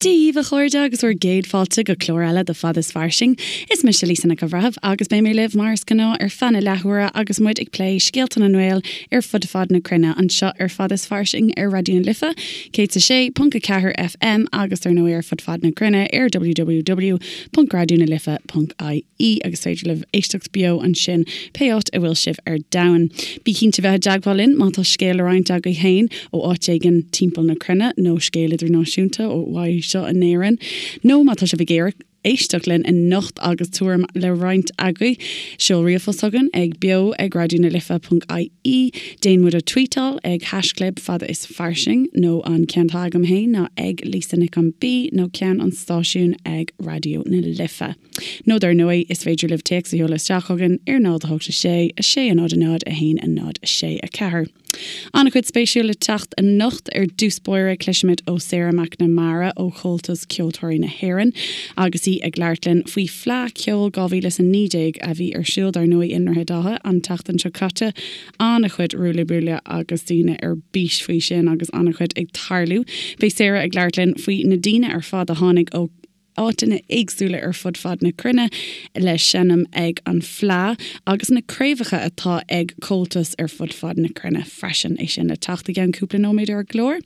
Dia dhaoibh a chairde agus bhur gcéad fáilte go clár eile de Fad is Fairsing. Is mise Lisa Nic an Bhreithimh agus beidh mé libh mar is gnáth ar feadh na leathuaire agus muid ag plé scéalta na nGael ar fud fad na cruinne anseo ar Fad is Fairsing ar Raidió na Life 106.4 FM agus dar ndóigh ar fud fad na cruinne ar www.raidionalife.ie. agus féidir libh éisteacht beo ansin pé áit a bhfuil sibh ar domhan. Bí cinnte bheith i dteagmháil linn má tá scéal le roinnt agaibh féin ó áit éigin timpeall na cruinne nó scéal idirnáisiúnta ó anseo in Éirinn nó má tá sibh ag iarraidh éisteacht linn anocht agus tuairim le roinnt agaibh, seol ríomhphost chugainn ag beo ag raidionalife.ie, déan muid a tweetáil ag haischlib fada is fairsing nó an ceann atá agam féin ná ag Lisa Nic an B nó ceann an stáisiúin ag Raidió na Life. Nó dar ndóigh, is féidir libh téacs a sheoladh isteach chugainn ar 0 8 6 6 0 0 1 0 6 4. An-chuid spéisiúil le teacht anocht. Ar dtús báire, cloisfimid ó Sarah McNamara ó Chomhaltas Ceoltóirí na hÉireann agus í ag labhairt linn faoi Fleadh Cheoil 2019 a bhí ar siúl dar ndóigh i nDroichead Átha an tseachtain seo caite. An-chuid ruaille buaille agus daoine ar bís faoi sin agus an-chuid ag tarlú. Beidh Sarah ag labhairt linn faoi na daoine ar fad a tháinig ó áiteanna éagsúla ar fud fad na cruinne le seinm ag an Fleadh agus na craobhacha atá ag Comhaltas ar fud fad na cruinne freisin. É sin le teacht i gceann cúpla nóiméad ar an gclár.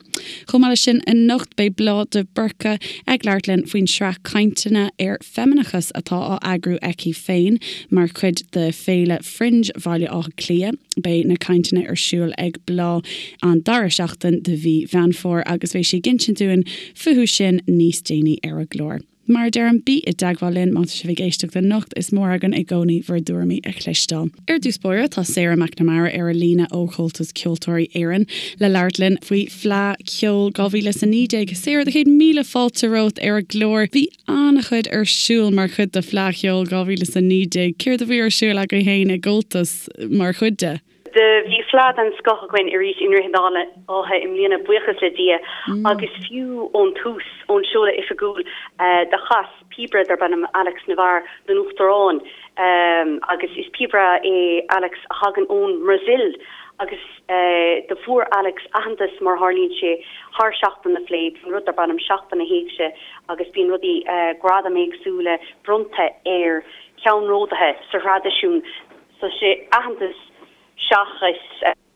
Chomh maith leis sin anocht beidh Bláth de Búrca ag labhairt linn faoin sraith cainteanna ar feimineachas atá á eagrú aici féin mar chuid de Féile Fringe Bhaile Átha Cliath. Beidh na cainteanna ar siúl ag Bláth an dara seachtain de mhí Mheán Fómhair agus beidh sí ag insint dúinn fúthu sin níos déanaí ar an gclár. Mar a deirim, bí i dteagmháil linn má tá sibh ag éisteacht anocht, is mór againn i gcónaí bhur dtuairimí a chloisteáil. Ar dtús báire, tá Sarah McNamara ar an líne ó Chomhaltas Ceoltóirí Éireann le labhairt linn faoi Fleadh Cheoil 2019. Sarah, do chéad míle fáilte romhat ar an gclár. Bhí an-chuid ar siúl mar chuid de Fleadh Cheoil 2019. Céard a bhí ar siúl agaibh féin i gComhaltas mar chuid de? Do bhí fleadh den scoth againn arís i nDroichead Átha i mbliana, buíochas le Dia, agus fiú ón tús, ón seoladh oifigiúil, do chas píobaire darb ainm Alex Navarre don Uachtarán, agus is píobaire é Alex a thagann ón mBrasaíl, agus do fuair Alex aitheantas, mar a tharlaíonn sé, thar Seachtain na Fleidhe, bíonn rud darb ainm Seachtain na hÉigse agus bíonn rudaí, gradaim éagsúla bronnta ar cheannródaithe sa thraidisiún. So sé aitheantas seachas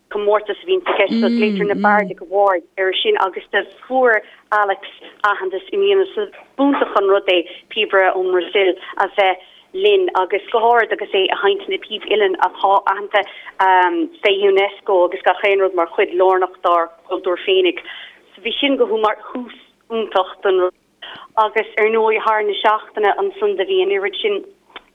comórtas a bhíonn i gceist. So glaoitear na Bardic Awards air sin agus do fuair Alex aitheantas i mbliana. So b'iontach an rud é píobaire ón mBrasaíl a bheith linn agus go háirid agus é ag seinnt na píb uilleann atá aitheanta fé Unesco agus gach aon rud mar chuid lárnach dár gcultúr féinig. So bhí sin go mar thús iontach don rud. Agus ar ndóigh thar na seachtaine ansan do bhí an oiread sin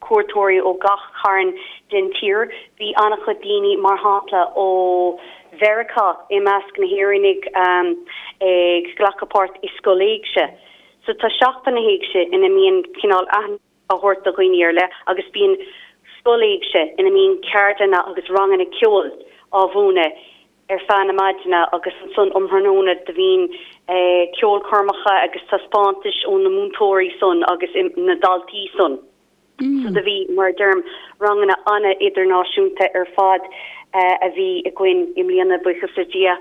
cuairteoirí ó gach carn den tír. Bhí an-chuid daoine, mar shampla, ó Mheiriceá i measc na hÉireannaigh ag glacadh páirt i Scoil Éigse. So tá Seachtain na hÉigse ina mbíonn cineál aithne á thabhairt do dhaoine ar leith agus bíonn Scoil Éigse ina mbíonn ceardlanna agus ranganna ceoil á mhúineadh ar feadh na maidine agus ansan um thráthnóna do bhíonn ceolchoirmeacha agus taispeántais ó na múinteoirí san agus na daltaí san. So do bhí, mar a deirim, ranganna ana-idirnáisiúnta ar fad a bhí againn i mbliana, buíochas le Dia.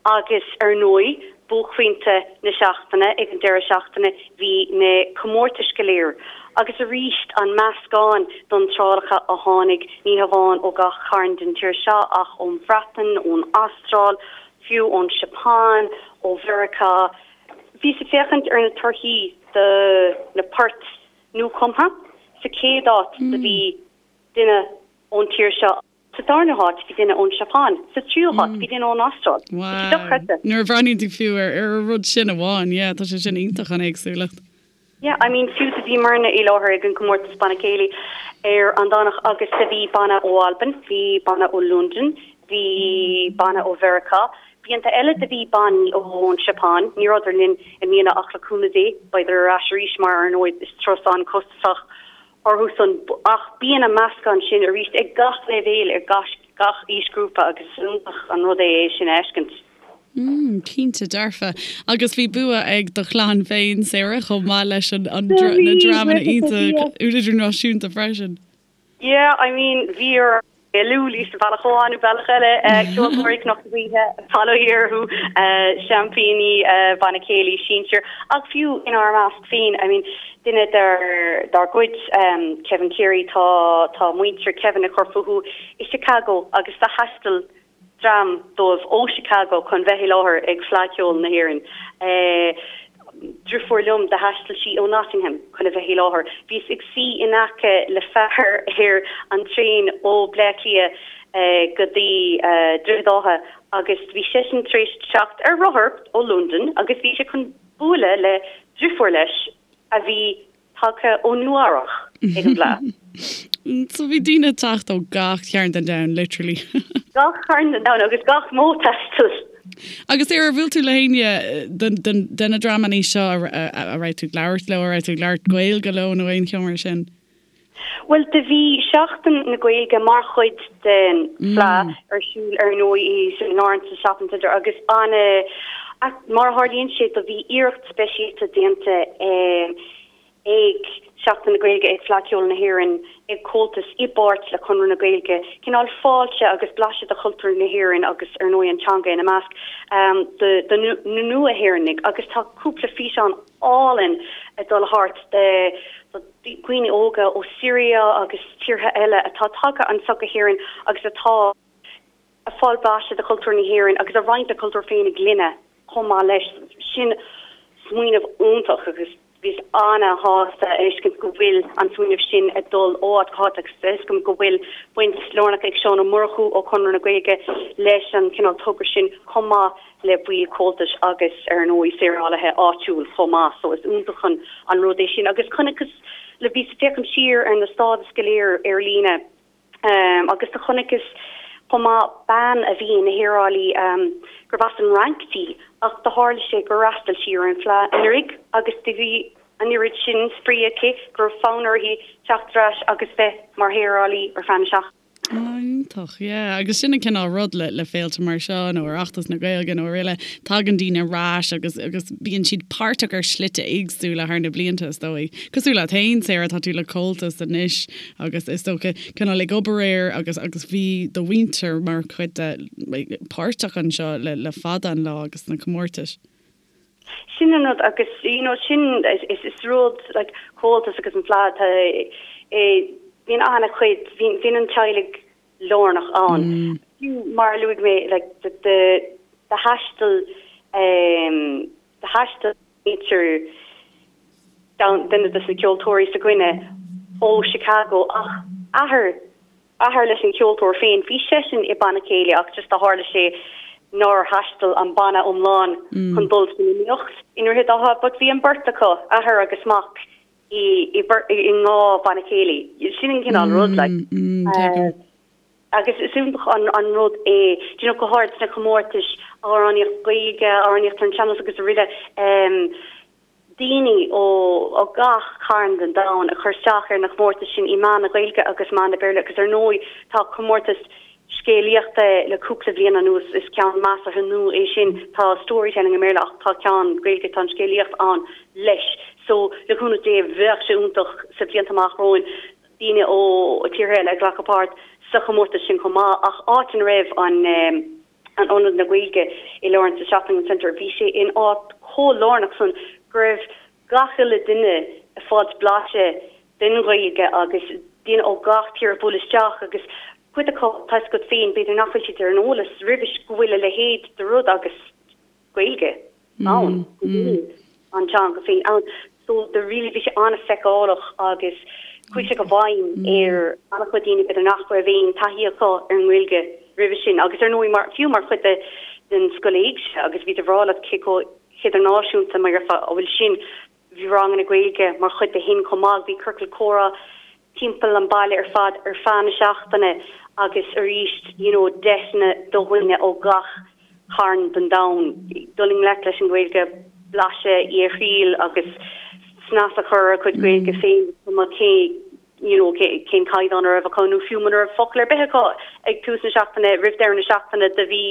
Agus ar ndóigh, buaicphointe na seachtaine, ag an deireadh seachtaine, bhí na comórtais go léir. Agus arís, an meascán d'iontrálacha a tháinig, ní hamháin ó gach carn den tír seo ach ón Bhreatain, ón Astráil, fiú ón Seapáin, ó Mheiriceá. Bhíos ag féachaint ar na torthaí do na poirt nuachumtha. Sa chéad áit do bhí duine ón tír seo. Sa darna háit, bhí duine ón Seapáin. Sa tríú háit, bhí duine ón Astráil. Tá sé dochreidte. Wow. Nuair a bhreathnaíonn tú fiú ar ar an rud sin amháin, yeah, tá sé sin iontach an éagsúlacht. Yeah, I mean, fiú do bhíomarna i láthair ag an gcomórtas Banna Céilí ar an Domhnach agus do bhí banna ó Albain, bhí banna ó Londain, bhí banna ó Mheiriceá. Blianta eile do bhí bannaí ón Seapáin, ní rabhadar linn i mbliana ach le cúnamh Dé beidar ar ais arís mar ar ndóigh is turas an-costasach orthu san ach bíonn an meascán sin arís ag gach leibhéal ar gach aoisghrúpa agus is iontach an rud é é sin a fheiscint. Mm, cinnte dearfa. Agus bhí bua ag do chlann féin, Sarah, chomh maith leis an, an, na dreamanna iontach idirnáisiúnta freisin. Yeah, I mean, bhí ar. Gaelú sa bhealach amháin nó bealach eile, ceoltóirí Chnoc na Gaoithe, bail ó Dhia orthu, seaimpíní Banna Céilí sinsir, ach fiú inár measc féin, I mean, duine dár gcuid, Kevin Cleary, tá tá muintir Kevin ag cur fúthu i Chicago agus do thaistil dream dóibh ó Chicago chun bheith i láthair ag Fleadh Cheoil na hÉireann. Driofúr liom, do thaistil sí ó Nottingham chun a bheith i láthair. Bhíos ag suí in aice le fear ar an traein ó Bleá Cliath go dtí Droichead Átha agus bhí seisean tar éis teacht ar rothar ó Londain agus bhí sé chun bualadh le driofúr leis a bhí tagtha ó Nua Eabhrach ag an bhFleadh. So bhí daoine ag teacht ó gach cearn den domhan, literally. Gach cearn den domhan agus gach modh taistil. Agus ar bhuail tú le héinne de na dreamanna seo a raibh tú ag labhairt leo, a raibh tú ag labhairt Gaeilge leo nó aon cheo mar sin? Bhuel, do bhí Seachtain na Gaeilge mar chuid den Fleadh ar siúl ar ndóigh i St Lawrence's Shopping Centre agus ana, mar a tharlaíonn sé, do bhí iarracht speisialta déanta ag Seachtain na Gaeilge, ag Fleadh Cheoil na hÉireann, ag Comhaltas i bpáirt le Conradh na Gaeilge, cineál fáilte agus blaiseadh de chultúr na hÉireann agus ar ndóigh an teanga ina measc, do na nua-Éireannaigh agus tá cúpla físeán álainn ag dul thart de dhaoine óga ó Syria agus tíortha eile atá tagtha anso go hÉirinn agus atá ag fáil blaiseadh de chultúr na hÉireann agus ag roinnt a cultúr féinig linne chomh maith leis. Sin smaoineamh iontach agus bhíos ana-shásta a fheiscint go bhfuil an smaoineamh sin ag dul ó áit go háit agus tá fhios agam go bhfuil baint lárnach ag Seán Ó Murchú ó Chonradh na Gaeilge leis an cineál togra sin chomh maith le baill Comhaltais agus ar ndóigh saorálaithe áitiúil chomh maith so is iontach an an rud é sin agus chonaiceas le bhíos ag féachaint siar ar na stádais go léir ar líne Agus do chonaiceas chomh maith bean a bhí ina shaorálaí gurbh as an Fhrainc di ach do tharla sé gur fhreastail sí ar an bhFleadh anuraidh agus do bhí an oiread sin spraoi aici go raibh fonn uirthi teacht ar ais agus bheith mar shaorálaí ar feadh na seachtaine. Iontach, yeah. Agus sin an cineál rud le le féilte mar seo nó Oireachtas na Gaeilge nó araile, tagann daoine ar ais agus agus bíonn siad páirteach ar shlite éagsúla thar na blianta is dóigh. Cosúil leat féin, Sarah, tá tú le Comhaltas anois agus is dócha cineál ag obair air agus agus bhí do mhuintir mar chuid de páirteach anseo le le fada an lá agus sna comórtais. Sin an rud agus you know sin is is rud like Comhaltas agus an Fleadh tá eh bíonn an-chuid bhíonn bhíonn an teaghlaigh lárnach ann. Fiú mar a luaigh mé like do do do thaistil eh do thaistil muintir duine de na ceoltóirí s'againne ó Chicago ach athair, athair leis an cheoltóir féin, bhí seisean i banna céilí ach just do tharla sé nár thaistil an banna iomlán chun dul san iomaíocht i nDroichead Átha but bhí an beirt acu, athair agus mac, i i i ndhá bhanna céilí. Sin an cineál rud like. Agus is iontach an rud é, do you know, go háirid sna comórtais amhránaíocht Gaeilge, amhránaíocht ar an sean-nós agus araile, daoine ó gach carn den domhan ag cur isteach ar na comórtais sin i meán na Gaeilge agus meán na Béarla agus ar ndóigh tá comórtas scéalaíochta le cúpla bliain anuas, is ceann measartha nua é sin, tá storytelling i mBéarla ach tá ceann Gaeilge, tá an scéalaíocht ann leis. So, le cúnamh Dé, bheadh sé iontach sa bhlianta amach romhainn, daoine ó tíortha eile ag glacadh páirt sa chomórtas sin chomh maith ach áit ina raibh an an Ionad na Gaeilge i Lawrence Shopping Centre bhí sé in áit chomh lárnach san go raibh gach uile duine ag fáilt blaiseadh den Ghaeilge agus daoine ó gach tír ag bualadh isteach agus cuid acu tá 'fhios agat féin b'fhéidir nach bhfuil siad ar an eolas roimhis go bhfuil a leithéid de rud agus Gaeilge ann, go bhfuil an teanga féin ann. So the really bhí sé an-fheiceálach agus chuaigh sé go bhfeidhm ar an-chuid daoine b'fhéidir nach raibh aon taithí acu ar an nGaeilge roimhe sin agus ar ndóigh mar, fiú mar chuid de den Scoil Éigse agus bhíos ag rá leat cé chomh hidirnáisiúnta mar a bhfuil sin Bhí ranganna Gaeilge mar chuid de shin chomh maith. Bhí ciorcal comhrá timpeall an baile ar fad ar feadh na seachtaine agus arís you know deiseanna do dhaoine ó gach carn den domhan dul i ngleic leis an Ghaeilge, blaiseadh í a thriail agus snas a chur ar a gcuid Gaeilge féin is cuma cé you know cén caighdeán a raibh acu nó fiú muna raibh focal ar bith acu ag tús na seachtaine roimh deireadh na seachtaine do bhí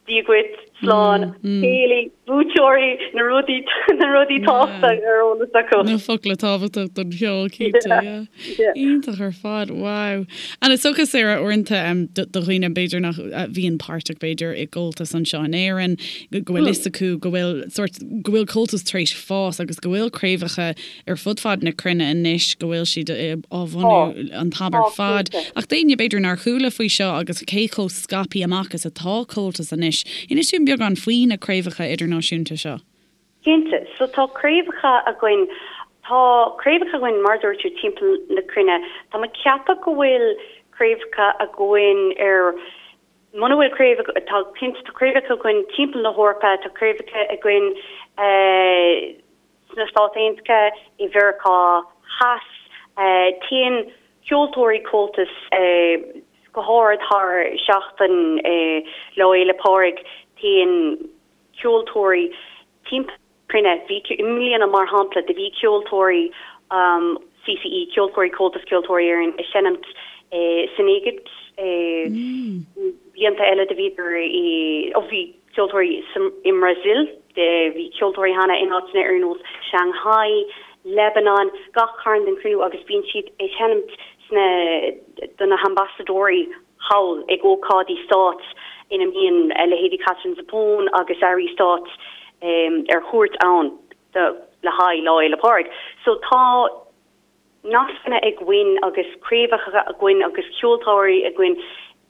Dia dhuit. Slán, céilí, buaiteoirí, na rudaí, na rudaí tábhachtacha ar eolas acu. Na focla tábhachtach don cheol, cinnte, yeah. Iontach ar fad, wow. And is dócha, Sarah, uaireanta do dhaoine b'fhéidir nach bhíonn páirteach b'fhéidir i gComhaltas anseo in Éirinn, go bhfuil fhios acu go bhfuil sórt, go bhfuil Comhaltas tar éis fás agus go bhfuil craobhacha ar fud fad na cruinne anois, go bhfuil siad á bhunú an t-am ar fad. Ach d'éinne b'fhéidir nár chuala faoi seo agus cé chomh scaipthe amach is atá Comhaltas anois, inis dúinn beagán faoi na craobhacha idirnáisiúnta seo. Cinnte. So tá craobhacha againn, tá craobhacha againn mar a dúirt tú timpeall na cruinne. Tá mé ag ceapadh go bhfuil craobhacha againn ar, muna bhfuil craobh, tá cinnte tá craobhacha againn timpeall na hEorpa, tá craobhacha againn eh, Sna Stáit Aontaithe, i Mheiriceá Theas, téann ceoltóirí Comhaltas, go háirid thar seachtain Lá Fhéile Pádraig, téann ceoltóirí timpeall na cruinne. Bhí, i mbliana mar shampla, do bhí ceoltóirí CCE, Ceoltóirí Comhaltas Ceoltóirí Éireann, ag seinimt san Éigipt. Blianta eile do bhíodar i, ó bhí, ceoltóirí i mBrasil, bhí ceoltóirí cheana in áiteanna ar nós Shanghai, Lebanon, gach cearn den chruinne agus bíonn siad ag seinmt sna do na hambasadóirí thall ag ócáidí stáit ina mbíonn leithéidí Katherine Zappone agus airí stáit ar chuairt ann le haghaidh Lá Fhéile Pádraig. So tá. nascanna againn agus craobhacha againn agus ceoltóirí againn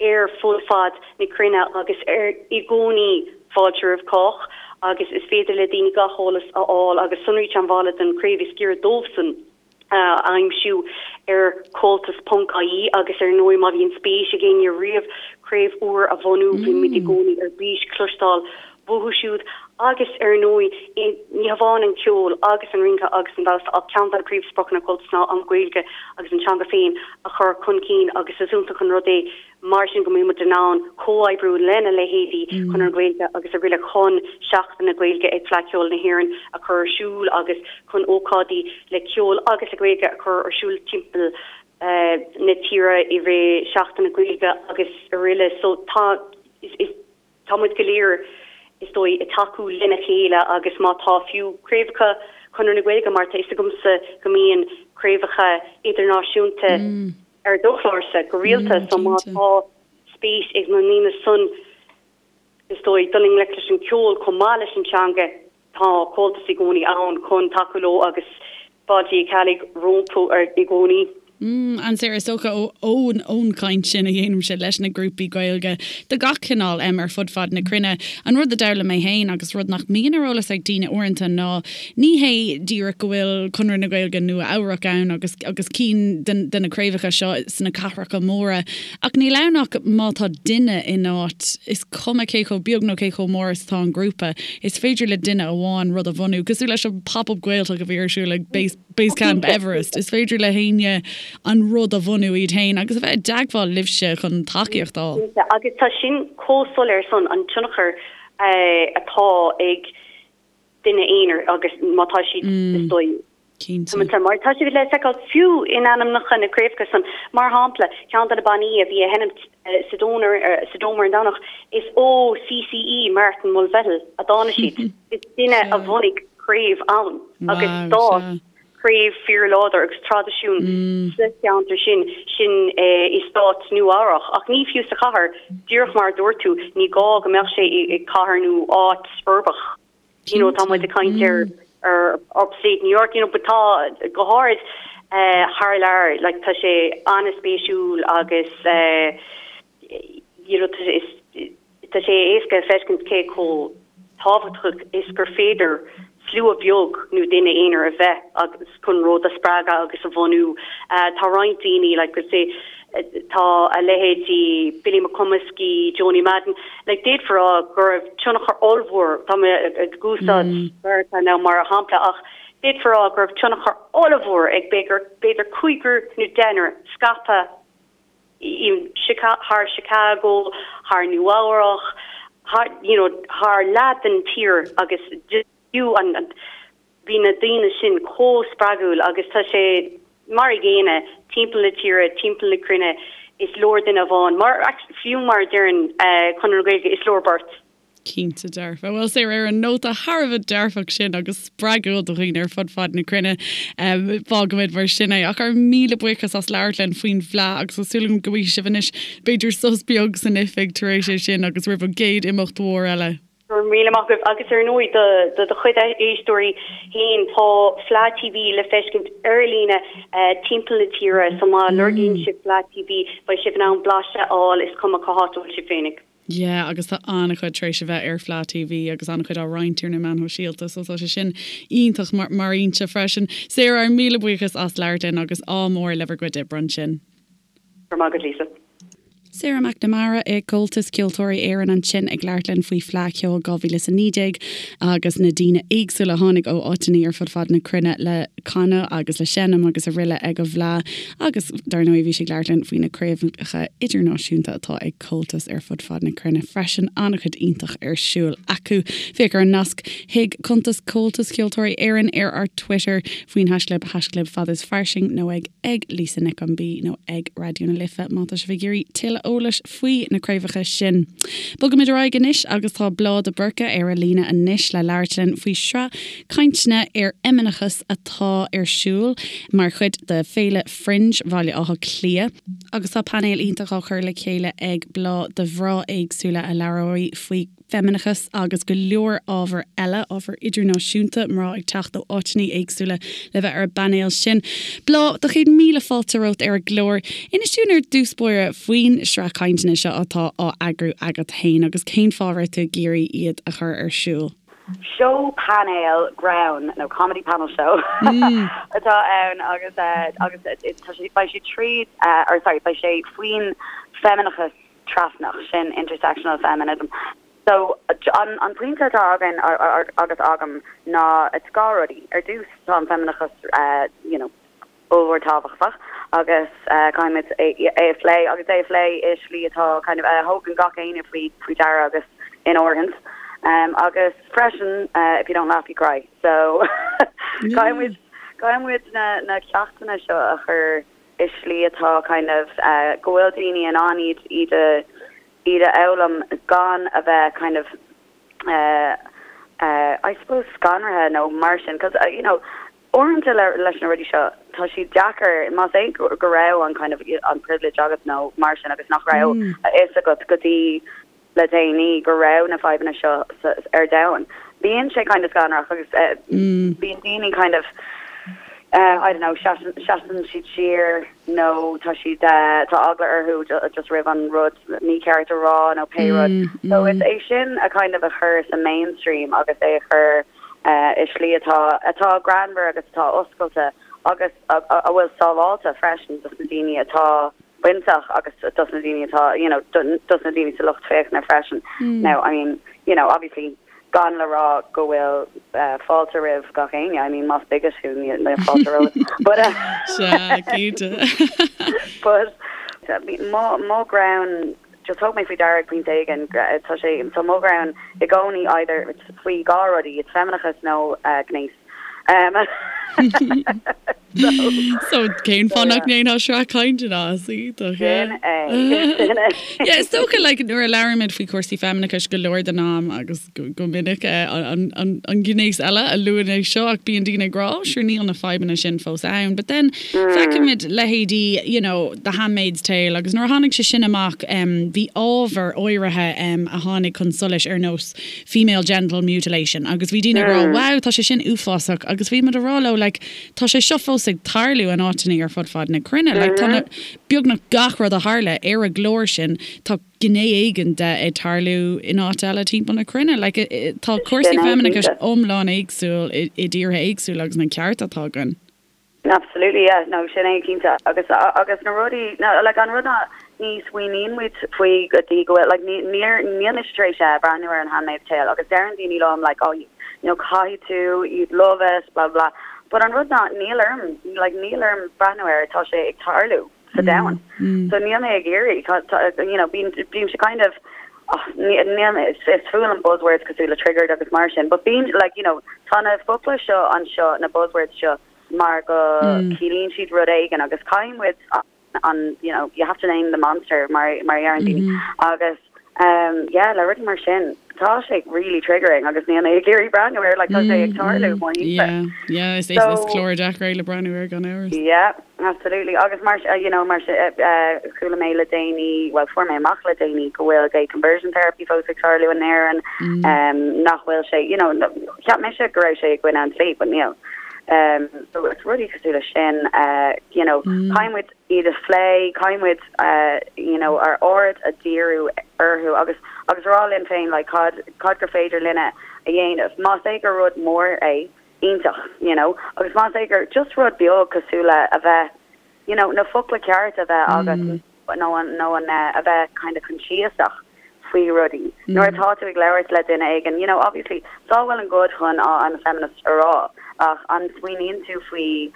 ar fud fad na cruinne agus ar i gcónaí fáilte roimh chách agus is féidir le daoine gach eolas a fháil agus sonraí teagmhála don chraobh is giorra dóibhsan a aimsiú ar comhaltas ponc ie agus ar ndóigh má bhíonn spéis ag éinne riamh craobh úr a bhunú bímid i gcónaí ar bís cloisteáil uathu siúd agus, ar ndóigh, ní hamháin an ceol agus an rince agus an damhsa ach ceann de na príomhspriocanna Comhaltas ná an Ghaeilge agus an teanga féin a chur chun cinn agus is iontach an rud é mar sin go mbíonn muid in ann comhoibriú lena leithéidí Chonradh na Gaeilge agus araile chun Seachtain na Gaeilge ag Fleadh Cheoil na hÉireann a chur ar siúl agus chun ócáidí le ceol agus le Gaeilge a chur ar siúl timpeall na tíre i rith Seachtain na Gaeilge agus araile. So tá is. Tá muid go léir, is dóigh, ag tacú lena chéile agus má tá fiú craobhacha Chonradh na Gaeilge, mar tá fhios agamsa go mbíonn craobhacha idirnáisiúnta ar do chlársa go rialta, so má tá spéis ag na ndaoine san, is dóigh, dul i ngleic leis an ceol chomh maith leis an teanga, Tá Comhaltas i gcónaí ann chun tacú leo agus fáilte Uí Cheallaigh rompu i gcónaí. And Sarah, is dócha ón ón chaint sin a dhéanaimse leis na grúpaí Gaeilge de gach cineál em ar fud fad na cruinne, an rud a d'fhoghlaim mé féin agus rud nach mbíonn ar eolas ag daoine uaireanta ná ní hé díreach go bhfuil Conradh na Gaeilge Nua Eabhrac ann agus agus cinn de de na craobhacha seo sna cathracha móra Ach níl ann ach má tá duine in áit, is cuma cé chomh beag nó cé chomh mór is atá an grúpa, is féidir le duine amháin rud a bhunú, cosúil leis an Pop-Up Gaeltacht a bhí ar siúl ag Base, Base Camp Everest. Is féidir le héinne an rud a bhunú iad féin agus a bheith i dteagmháil libhse chun tacaíocht a fháil. Cinnte, agus tá sin chomh soiléir san, an tionchar atá ag duine aonair agus má tá siad, is dóigh, Cinnte. Mar tá siad le feiceáil fiú in ainmneacha na craobhacha san. Mar shampla, ceann de na bannaí a bhí ag sheinmt sa Dome sa Dome ar an Domhnach, is ó CCE Martin Mulvihill a dtáinig siad. Is duine a bhunaigh craobh ann agus d'fhás craobh fíorláidir agus traidisiún sa cheantar sin, sin i stát Nua Eabhrach. Ach ní fiú sa chathair, díreach mar a dúirt tú, ní gá go mbeadh sé i cathair nó áit uirbeach. You know, tá muid ag caint ar ar upstate New York, you know, but tá go háirid eh, thar lear, like, tá sé an-spéisiúil agus eh, you know, tá sé is tá sé éasca a feiscint cé chomh tábhachtach is gur féidir slua beag nó duine aonair a bheith agus chun rud a spreagadh agus a bhunú. Eh, tá roinnt daoine, like, say, Tá a leithéidí Billy McComiskey, Joanie Madden, like d'fhéadfá a rá go raibh tionchar ollmhór, tá mé ag úsáid Meiriceá now mar shampla, ach d'fhéadfá a rá go raibh tionchar ollmhór ag b'fhéidir cúigear nó deichniúr scaipthe thar Chicago, thar Nua Eabhrach, thar you know thar leath den tír agus fiú an Bhí na daoine sin chomh spreagúil agus tá sé mar a gcéanna timpeall na tíre, timpeall na cruinne, is leor duine amháin, mar, fiú mar a deireann Conradh na Gaeilge, is leor beirt. Cinnte dearfa. Bhuel, Sarah, ar an nóta thar a bheith dearfach sin agus spreagúil do dhaoine ar fud fad na cruinne, fágfaimid mar sin é. Ach ár míle buíochas as labhairt linn faoin bhFleadh agus tá súil agam go bhfaighidh sibh anois b'fhéidir sos beag san oifig tar éis é sin agus roimh an gcéad imeacht mhór eile. Go raibh míle maith agaibh agus ar ndóigh do do do chuid éisteoirí féin tá Fleadh TV le feiscint ar líne timpeall na tíre so má lorgaíonn sibh Fleadh TV beidh sibh in ann blaiseadh a fháil is cuma cá háit a bhfuil sibh féinig. Yeah agus tá an-chuid tar éis a bheith ar Fleadh TV agus an-chuid á roinnt ar na meáin shóisialta so tá sé sin iontach mar fhoinse freisin. Sarah, ár míle buíochas as labhairt linn agus ádh mór le bhur gcuid oibre ansin. Go raibh maith agat Lisa. Sarah McNamara i gComhaltas Ceoltóirí Éireann ansin ag labhairt linn faoi Fleadh Cheoil 2019 agus na daoine éagsúla a tháinig ó áiteanna ar fud fad na cruinne le canadh agus le seinm agus araile ag an bhFleadh agus dar ndóigh bhí sí ag labhairt linn faoi na craobhacha idirnáisiúnta atá ag Comhaltas ar fud fad na cruinne freisin. An-chuid iontach ar siúl acu. Féach ar an nasc chuig cuntas Comhaltas Ceoltóirí Éireann ar ár Twitter faoin haischlib haischlib fad is fairsing nó ag ag Lisa Nic an B nó ag Raidió na Life má tá sibh ag iarraidh tuilleadh eolais faoi na craobhacha sin. Bogaimid ar aghaidh anois agus tá Bláth de Búrca ar an líne anois le labhairt linn faoi shraith cainteanna ar fheimineachas atá ar siúl mar chuid de Féile Fringe Bhaile Átha Cliath, agus tá painéal iontach á chur le chéile ag Bláth de mhná éagsúla a labhróidh faoi feimineachas agus go leor ábhar eile, ábhar idirnáisiúnta, mná ag teacht ó áiteanna éagsúla le bheith ar an bpainéal sin. Bláth, do chéad míle fáilte romhat ar an gclár. Inis dúinn ar dtús báire faoin sraith cainteanna seo atá á eagrú agat féin agus cén fáth a raibh tú ag iarraidh iad a chur ar siúl. Seó painéil greann nó comedy panel show atá ann agus agus tá sé beidh sé tríd or sorry beidh sé faoin feimineachas trasnach, sin intersectional feminism. So an an pointe atá againn agus agam ná it's dhá rudaí. Ar dtús tá an feimineachas you know ollmhór tábhachtach agus caithfimid é a phlé agus é a phlé i slí atá kind of a thógann gach éinne faoi faoi deara agus in áirithint. Agus freisin if you don't laugh you cry so caithfimid caithfimid na na ceachtanna seo a chur i slí atá kind of go bhfuil daoine in ann iad iad a iad a fhoghlaim gan a bheith kind of I suppose scanraithe nó mar sin 'cause you know Uaireanta leis na rudaí seo, tá siad deacair, más é go raibh an kind of an privilege agat nó mar sin agus nach raibh a fhios agat go dtí le déanaí go raibh na fadhbanna seo ar domhan. Bíonn sé kind of scanrach agus bíonn daoine kind of I don't know, seasann siad siar nó tá siad, tá eagla orthu just roimh an rud mícheart a rá nó pé rud. So is é sin a kind of a chur sa mainstream agus é a chur i slí atá atá greannmhar agus atá oscailte agus a bhfuil sábháilte freisin dos na daoine atá bainteach agus dos na daoine atá you know dos na daoine sa lucht féachana freisin. Now I mean you know obviously gan le rá go bhfuil fáilte roimh gach éinne, I mean más bigot thú níl fáilte romhat but Sea, cinnte. but mo mo ghreann Just thug mé faoi deara ag pointe éigin, tá sé, tá mo ghreann i gcónaí either faoi dhá rudaí, it's feimineachas nó gnéas. So, So cén fáth nach ndéanfá sraith cainteanna as iontach, yeah. Sin é, sin é. Yeah, is dócha like nuair a labhraímid faoi chúrsaí feimineachais go leor den am agus go minic an gnéas eile a luann é seo ach bíonn daoine ag rá oh sure níl na fadhbanna sin fós ann but then feicimid leithéidí you know The Handmaid's Tale agus nuair a tháinig sé sin amach bhí ábhar áirithe a tháinig chun solais ar nós female genital mutilation agus bhí daoine ag rá wow tá sé sin uafásach agus bhí muid ag rá leo like tá sé seo fós ag tarlú in áiteanna ar fud fad na cruinne like tá na beagnach gach rud a tharla ar an gclár sin tá gné éigin de ag tarlú in áit eile timpeall na cruinne. Like, tá cúrsaí feimineachais iomlán éagsúil i dtíortha éagsúla agus na cearta atá againn. Absolutely, yeah, no, sin é cinnte. Agus, agus na rudaí, no, like, an rud ná ní smaoiníonn muid faoi go dtí go bhfuil, like, ní, níor, níl mise tar éis breathnú ar an Handmaid's Tale agus deireann daoine liom, like, oh, you know, caithfidh tú, you'd love it, blah, blah, blah. But an rud ná níl orm, like, níl orm breathnú air, tá sé ag tarlú. sa domhan. So níl mé ag iarraidh, you know, bím, bímse kind of, oh, níl mé, is fuath liom buzzwords cosúil le triggered agus mar sin, but bím, like, you know, tá na focla seo anseo, na buzzwords seo, mar go ciallaíonn siad rud éigin agus caithfidh muid an, you know, you have to name the monster mar, mar a deireann daoine. Agus, um, yeah, le rudaí mar sin. Tá sé really triggering agus níl mé ag iarraidh breathnú air, like tá sé ag tarlú mo thimpeall. Yeah, yeah, is is clár deacair é le breathnú air gan amhras. Yeah, absolutely. Agus mar you know, mar chuala mé le déanaí, well fuair mé amach le déanaí go bhfuil gay conversion therapy fós ag tarlú in Éirinn, nach bhfuil sé, you know, cheap mise go raibh sé i gcoinne an dlí, but níl. Um, so it's rudaí cosúil leis sin, uh, you know, caithfidh muid iad a phlé, caithfidh muid you know ár aird a dhíriú orthu agus agus rá linn féin like cad cad gur féidir linne a dhéanamh. Más é gur rud mór é, iontach, you know, agus más é gur just rud beag cosúil le a bheith you know na focla cearta a bheith agat nó an nó an a bheith kind of coinsiasach faoi rudaí. Nuair atá tú ag labhairt le duine éigin, you know, obviously, it's all well and good chun oh I'm a feminist a rá ach an smaoiníonn tú faoi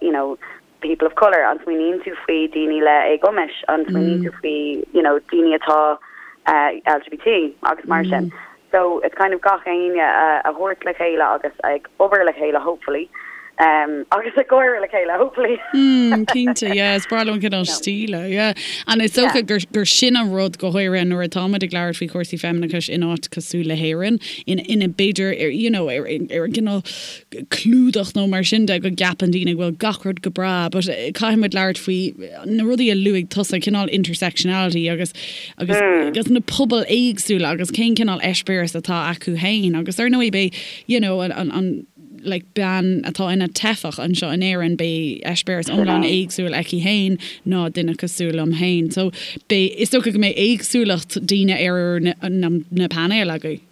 you know people of colour, an smaoiníonn tú faoi daoine le éagumais, an smaoiníonn tú faoi you know daoine atá LGBT agus mar sin. So it's kind of gach éinne a thabhairt le chéile agus ag obair le chéile hopefully um, agus ag gáire le chéile hopefully. Mm, cinnte, yeah, is breá liom an cineál stíle, yeah. And is dócha gur, gur sin an rud go háirithe nuair atáimid ag labhairt faoi chúrsaí feimineachais in áit cosúil le hÉirinn, in, ina b'fhéidir, you know, ar, ar an gcineál clúdach nó mar sin de go gceapann daoine go bhfuil gach rud go breá but caithfidh muid labhairt faoi na rudaí a luaigh tusa, cineál intersectionality agus agus agus na pobail éagsúla agus cén cineál eispéireas atá acu féin agus ar ndóigh beidh you know an an an like bean atá ina teifeach anseo in Éirinn beidh eispéireas iomlán éagsúil aici féin ná duine cosúil liom féin so beidh is dócha go mbeidh éagsúlacht daoine ar na na na painéil agaibh.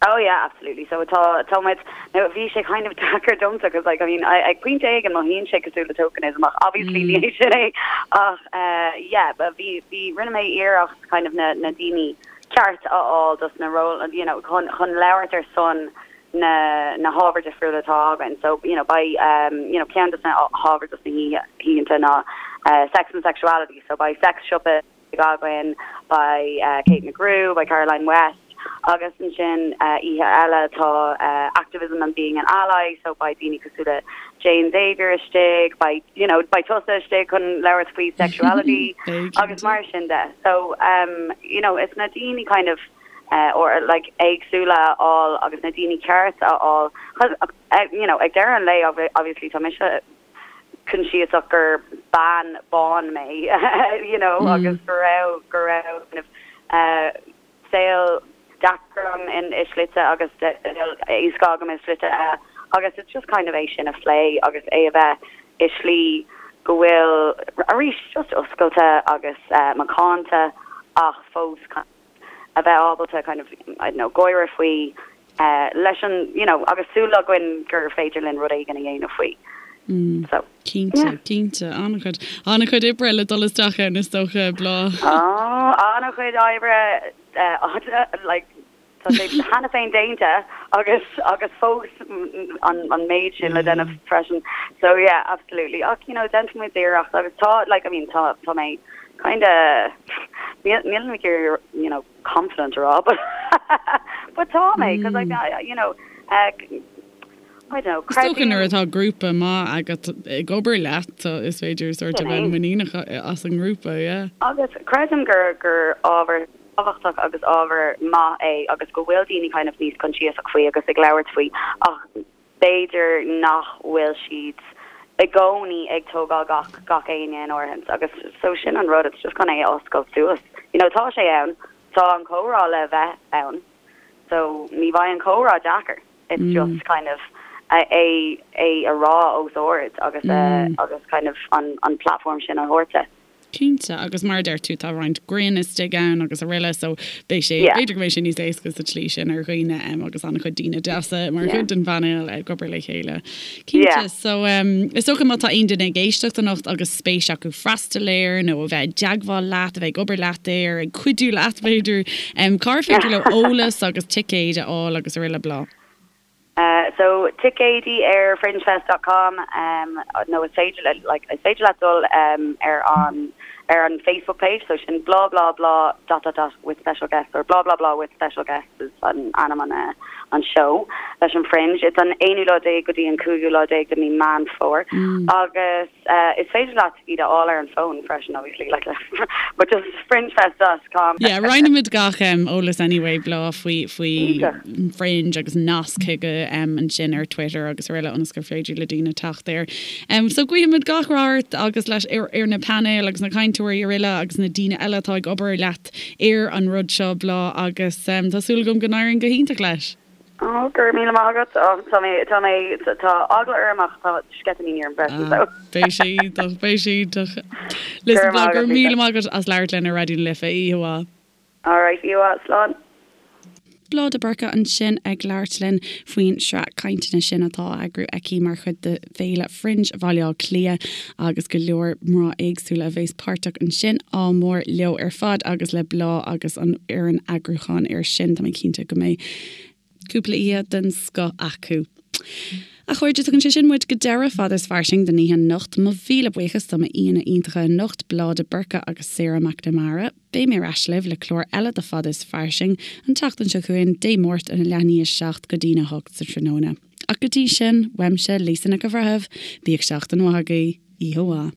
Oh yeah, absolutely. So tá, tá muid, now bhí sé kind of deacair domsa cos like, I mean, I, ag pointe éigin mothaíonn sé cosúil le tokenism ach obviously ní hé sin é ach eh, yeah, but bhí, bhí, rinne mé iarracht kind of na, na daoine ceart a fháil dos na ról, you know, chun, chun labhairt ar son na, na hábhair difriúla atá againn. So, you know, beidh, um, you know, ceann dos na hábhair dos na hoícheanta ná eh, sex and sexuality, so beidh sex siopa againn, beidh Kate McGrew, beidh Caroline West agus ansin oíche eile tá Activism and Being an Ally so beidh daoine cosúil le Jane Xavier istigh, beidh you know beidh tusa istigh chun labhairt faoi sexuality agus mar sin de. So um you know it's na daoine kind of uh, or like éagsúla a fháil agus na daoine ceart a fháil you know ag deireadh an lae obviously tá mise coinsiasach gur bean bán mé you know agus go raibh go raibh kind of saol deacair agam in i slite agus saol éasca agam i slite eile agus it's just kind of é sin a phlé agus é a bheith i slí go bhfuil arís just oscailte agus macánta ach fós kind a bheith ábalta kind of, I don't know, gáire faoi leis an, you know, agus súil againn gur féidir linn rud éigin a dhéanamh faoi. So, Cinnte, yeah. cinnte. An-chuid, an-chuid oibre le dul isteach ann is dócha, Bláth. Oh, an-chuid oibre, like, Tá sé cheana féin déanta agus agus fós an an méid sin le déanamh freisin. So yeah, absolutely. Ach you know, déanfaidh muid iarracht agus tá like I mean tá tá mé kinda níl níl mé ag iarraidh you know confident a rá but but tá mé because like I you know uh, I don't know, Is dócha nuair atá grúpa maith agat ag obair leat is féidir sort of bheith muiníneach as an ngrúpa, yeah. Agus creidim gur gur ábhar tábhachtach agus ábhar maith é agus go bhfuil daoine kind of níos coinsiasach faoi agus ag labhairt faoi ach b'fhéidir nach bhfuil siad i gcónaí ag tógáil gach gach éinne in áirithint agus so sin an rud it's just chun é a oscailt suas. You know tá sé ann, tá an comhrá le bheith ann so ní bheidh an comhrá deacair it's just kind of é é a rá os ard agus agus kind of an an platform sin a thabhairt de. Cinnte, agus mar a deir tú, tá roinnt grinn istigh ann agus araile so beidh sé, b'fhéidir go mbeidh sé níos éasca sa tslí sin ar dhaoine agus an-chuid daoine deasa mar chuid den phainéal ag obair le chéile. Cinnte, so is dócha má tá aon duine ag éisteacht anocht agus spéis acu freastal air nó a bheith i dteagmháil leat, a bheith ag obair leat air, ag cuidiú leat b'fhéidir, cár féidir leo eolas agus ticéid a fháil agus araile Bláth? So ticéidí ar fringefest dot com nó is féidir le like is féidir leat dul ar an ar an Facebook page so sin blah blah blah dot dot dot with special guests or blah blah blah with special guests is an ainm an. an seó leis an Fringe. It's an aonú lá déag go dtí an cúigiú lá déag de mí Meán Fómhair agus is féidir leat iad a fháil ar an bhfón freisin obviously like but just fringefest dot com. Yeah, roinnfimid gach eolas anyway Bláth faoi faoi Fringe agus nasc chuige ansin ar Twitter agus araile ionas gur féidir le daoine teacht air. So guímid gach rath ort agus leis ar ar na painéil agus na cainteoirí araile agus na daoine eile atá ag obair leat ar an rud seo Bláth agus tá súil agam go n-éiríonn go hiontach leis. Oh, go raibh míle maith agat. Oh, tá mé, tá mé, tá eagla orm ach tá sceitimíní orm freisin, so. Beidh sé iontach, beidh sé iontach. Listen Bláth, go raibh míle maith agat as labhairt linn ar Raidió na Life. Oíche mhaith. Alright, oíche mhaith, slán. Bláth de Búrca ansin ag labhairt linn faoin sraith cainteanna sin atá á eagrú aici mar chuid de Fhéile Fringe Bhaile Átha Cliath agus go leor mná éagsúla a bheas páirteach ansin. Ádh mór leo ar fad agus le Bláth agus an fhoireann eagrúcháin air sin. Tá mé cinnte go mbeidh cúpla oíche den scoth acu. A chairde, tugann sé sin muid go deireadh Fada is Fairsing don oíche anocht. Mo mhíle buíochas do m'aíonna iontacha anocht, Bláth de Búrca agus Sarah McNamara. Beidh mé ar ais libh le clár eile de Fada is Fairsing an tseachtain seo chugainn, Dé Máirt óna leath i ndiaidh a 7 go dtína 8 sa tráthnóna. Ach go dtí sin, uaimse, Lisa Nic an Bhreithimh, bíodh seachtain mhaith agaibh. Oíche mhaith.